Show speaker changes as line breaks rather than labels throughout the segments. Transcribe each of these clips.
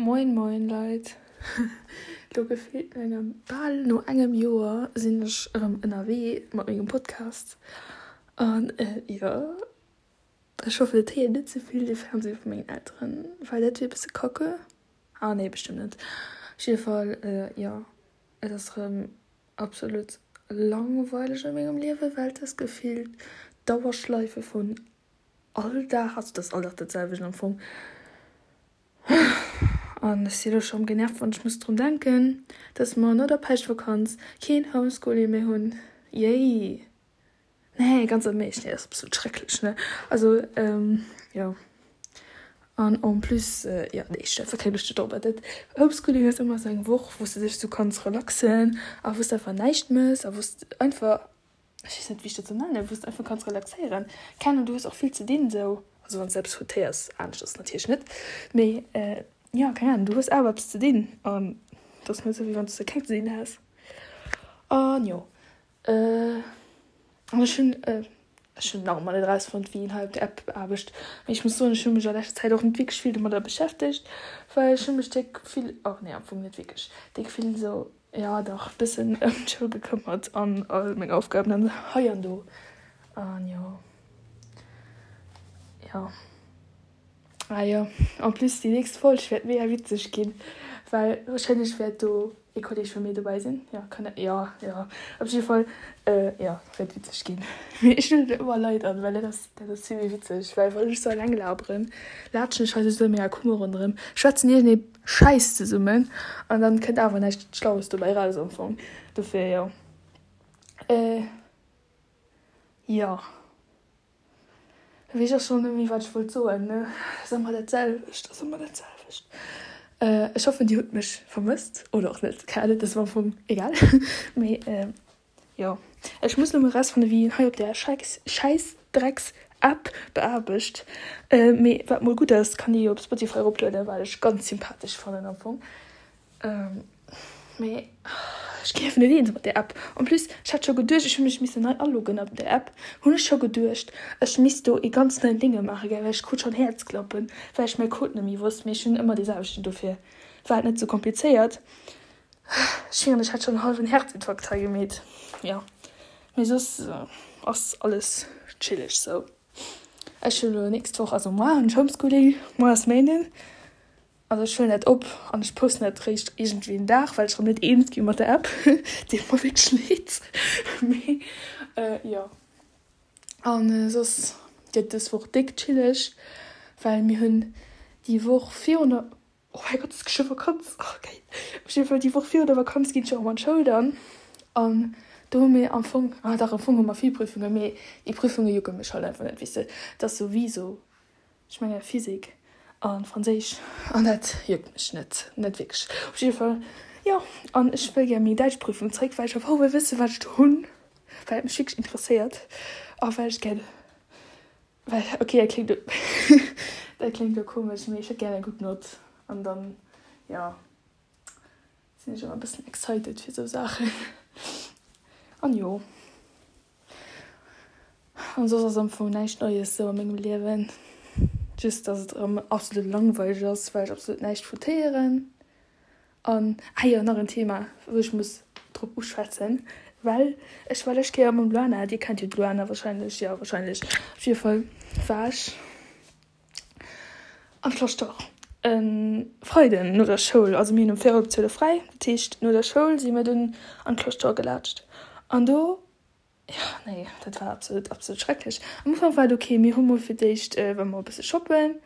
Moin moin Leit, lo gefillt no engem bal no engem Joer sinn ech erëm ënnerwee mat mengem Podcast an jo ech hoffen et héiert net ze vill de Fernseh vu mengen Elteren, well dat wier e bësse kacke, ah nee bestëmmt net. Op jidde Fall jo et ass erëm absolut langweileg a mengem Liewen, well et ass gefillt d'Dauerschleife vun all Dag, also et ass all Dag dat selwecht am Fong. An ech si elo scho genervt, wann ech muss drun denken, dass mer no der Päischtvakanz keen Homeschooling méi hunn. Yay! Nee, ganz am Eescht, nee, dat ass absolut schrecklech, ne? Also, jo. An en plus, jo, nee, ech hu einfach keng Loscht dorobber. Dat Homeschooling ass ëmmer esou eng Woch, wou s de dech esou kanns relaxen a wou s de einfach näischt méchs a wou s de einfach ech weess net wéi ech dat soll nennen, wou s de einfach kanns relaxéieren. Keng Ahnung, du hues och vill ze dinn esou, also wann s de eppes foutéiers, anescht ass et natierlech net, mee jo, keng Ahnung, du hues awer eppes ze dinn an et ass net esou wéi wann s de keng ze dinn häss. An jo, an ech hunn, ech hunn nach ëmmer net erausfonnt wéi een hei op der App beaarbecht, mee ech muss soen, ech hu mech a leschter Zäit och net wierklech vill domadder beschäftegt, well ech hu mech déck vill, oh nee am Fong net wierklech déck vill esou Jo dach, bëssen ëm d'Schoul gekëmmert an all meng Aufgaben an hei an do an jo jo ah jo en plus déi nächst Folg wäert mega witzeg ginn, well wahrscheinlech wäert do ee Kolleg vu mir dobäi sinn, jo kann jo jo op jidde Fall jo wäert witzeg ginn. Mee ech lueden ëmmer Leit an, well dat ass dat ass vill méi witzeg, well wann ech sou eleng laberen, laatschen ech hei sou a menger Kummer ronderëm, schwätzen iergendee Schäiss zesummen an dann kënnt awer näischt Schlaues dobäi raus am Fong. Dofir jo. Äh jo. Weess ech och schonn net méi wat ech wollt soen ne. Ass ëmmer dat selwecht, ass ëmmer dat selwecht. Äh ech hoffen dir hutt mech vermësst oder och net, keng Ahnung, dat ass am Fong egal. Mee Jo, ech muss lo mol rausfannen wéi een hei op der Schäissdrecks App beaarbecht. Mee wat mol gutt ass, kann ee jo op Spotify eroplueden, wat ech ganz sympathesch fannen am Fong. Mee ech ginn einfach net eens mat där App. En plus, ech hat scho geduecht, ech hu mech missen nei aloggen op der App, hunn ech scho geduecht, ech misst do ee ganz neien Dénge maachen, gell, well ech krut schonn Häerzklappen, well ech mäi Code net méi wosst. Mee ech hunn ëmmer dee selwechten, dofir war et net sou komplizéiert. Ech mengen ech hätt schon en halwen Herzinfarkt hei gemeet. Jo mee soss ass alles chilleg sou. Ech hunn elo nächst Woch, also moar hunn ech Homeschooling, moar ass Méinden. Also ech huelen dat op an ech posten dat réischt iergendwéi en Dag, well ech erëm net eens gi mat der App. Deet mer wierklech leed. Mee jo an soss gëtt dës Woch déck chilleg, well mir hunn déi Woch virun der. Oh mäi Gott, et ass geschwë Vakanz! Oh geil! Op jidde Fall, déi Woch virun der Vakanz ginn ech erëm an d'Schoul dann. An do hu mir am Fong, ah dach, am Fong hu mer vill Prüfungen, mee déi Prüfunge jucke mech halt einfach net, weess de. Et ass sou wéi sou, ech menge Physik a Franséisch an dat juckt mech net, net wierklech. Op jidde Fall, jo, an ech wëll gär meng Däitschprüfung zréck, well ech einfach wëll wësse wat ech do hunn, well et mech wierklech interesséiert a well ech gär Well, ok, dat kléngt elo, dat kléngt elo komesch, mee ech hätt gär eng gutt Nott an dann, jo, sinn ech ëmmer e bëssen excited fir esou Saachen. An jo, an soss ass am Fong näischt Neies esou a mengem Liewen, just dass et erëm absolut langweileg ass, well ech absolut näischt foutéieren. An, ah jo, nach en Thema, wou ech muss drop uschwätzen, well ech war lescht Kéier mam Luana, dir kennt jo d'Luana wahrscheinlech, jo wahrscheinlech, op jidde Fall war ech am Schloss e Freiden no der Schoul, also mir hunn um véierel op 12 fräi, dat heescht no der Schoul si mir dunn an d'Cloche d'Or gelaatscht an do Jo, nee, dat war absolut, absolut schrecklech. Am Ufank war et ok, mir hu mol fir d'éischt war mer e bësse shoppen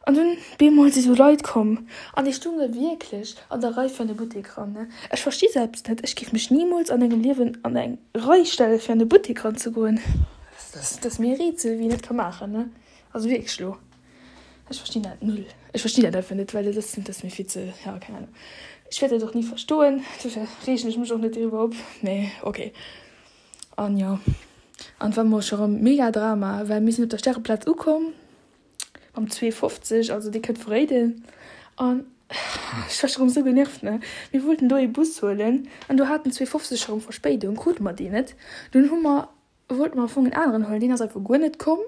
an dunn bemol si sou Leit komm an déi stounge wierklech an der Rei fir an de Buttek ran, ne. Ech versti selbst net, ech géif mech nimools an engem Liewen an eng Rei stelle fir an de Buttek ranzegoen. Dat ass mir e Rätsel, wéi een dat ka maachen, ne. Also wierklech elo. Ech verstinn dat null. Ech verstinn dat einfach net, well dat ass, dat ass mir vill ze, ja, keng Ahnung. Ech wäert dat och ni verstoen, dofir reegen ech mech och net driwwer op, mee ok. An jo, an et war mol scho rëm mega Drama, well mir sinn op der Stäreplaz ukomm am 2,50, also dee kënnt vu Réiden, an ech war scho rëm esou genervt, ne. Mir wollten do ee Bus huelen an do hat den 2,50 scho rëm Verspéidung, krute mer deen net. Dunn hu mer Wollte mer am Fong en aneren huelen, deen ass einfach guer net komm.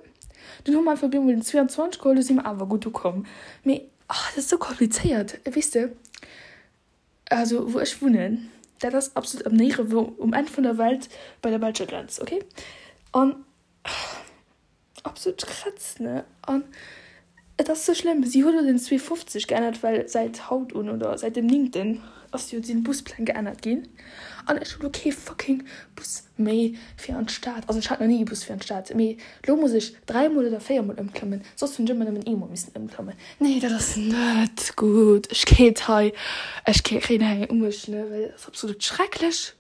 Dunn hu mer einfach op eemol den 22 geholl, do si mer awer gutt ukomm. Mee. Oh, dat ass esou komplizéiert, weess de. Also wou ech wunnen, dat ass absolut am Néierewou, um Enn vun der Welt, bei der belscher Grenz, okay? An absolut Krätz, ne? An et ass sou schlëmm, si huet elo den 2,50 geännert, well säit haut un oder säit dem néngten ass jo sinn d'Buspläng geännert ginn. An ech hu lo kee fucking Bus méi fir an d'Stad. Also ech hat nach ni ee Bus fir an d'Stad, mee lo muss ech dräimol oder véiermol ëmklammen, soss hunn ech ëmmer nëmmen eemol missen ëmklammen. Nee, dat ass net gutt. Ech kéint hei, ech kréien hei eng u mech, ne, well dat ass absolut schrecklech.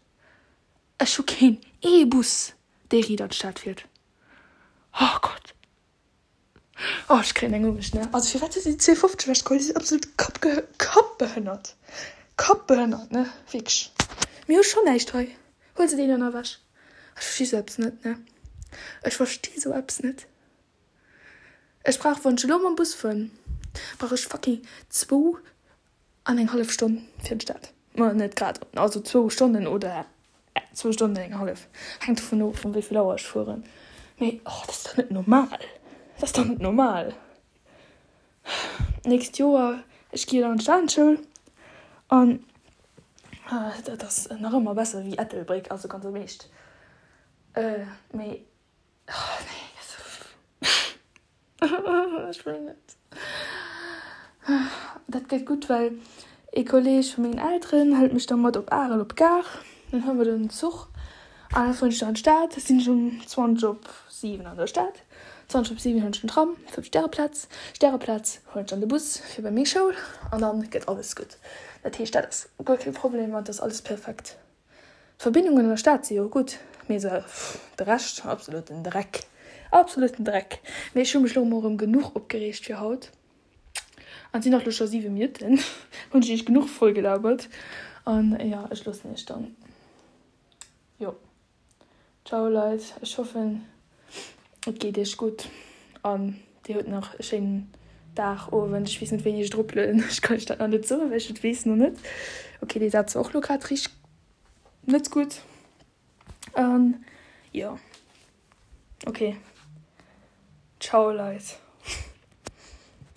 Ech hu keen ee Bus, dee riit an d'Stad fiert. Oh Gott. Oh, ech kréien eng u mech, ne. Also firwat hu si 2,50 ewechgeholl? Déi sinn absolut kappge kappbehënnert. Kappbehënnert, ne, wierklech. Mir hu schonn näischt hei. Huel se deenen ewech. Ech versti sou eppes net, ne. Ech versti sou eppes net. Ech brauch, wann ech elo mam Bus fueren, brauch ech fucking zwou an eng hallef Stonn fir an d'Stad. Ma net grad, also zwou Stonnen oder zwou Stonnen an eng hallef, hänkt dovun of, um wéi vill Auer ech fueren. Mee oh, dat ass dach net normal! Dat ass dach net normal! D'nächst Joer, ech gi jo dann an d'Stadensschoul an dat ass nach ëmmer besser wéi Ettelbréck, also ganz am Eescht. Mee Oh nee, ech wëll net. Dat gëtt gutt, well ee Kolleeg vu mengen Elteren hëlt mech da mat op Arel op d'Gare. Dann huele mer den Zuch an da fueren ech dann an d'Stad. Da sinn ech um 20 op 7 an der Stad. 20 op 7 hunn ech den Tram fir op d'Stäreplaz. Stäreplaz huelen ech dann de Bus fir bei meng Schoul an dann gëtt alles gutt. Dat heescht, dat ass guer kee Problem an et ass alles perfekt. D'Verbindungen an der Stad si jo gutt, mee se, de Rescht, absoluten Dreck, absoluten Dreck. Mee ech hu mech lo mol erëm genuch opgereegt fir haut. An et sinn och lo scho 7 Minutten, hunn ech iech genuch voll gelabert. An jo, ech loossen iech dann, jo. Ciao Leit, ech hoffen et geet iech gutt an dir hutt nach e schéinen Dag, Owend, ech weess net wéini ech et eroplueden, ech kann iech dat nach net soen, well ech et weess nach net. Ok dee Saz war och lo grad richteg net gutt an jo ok ciao Leit.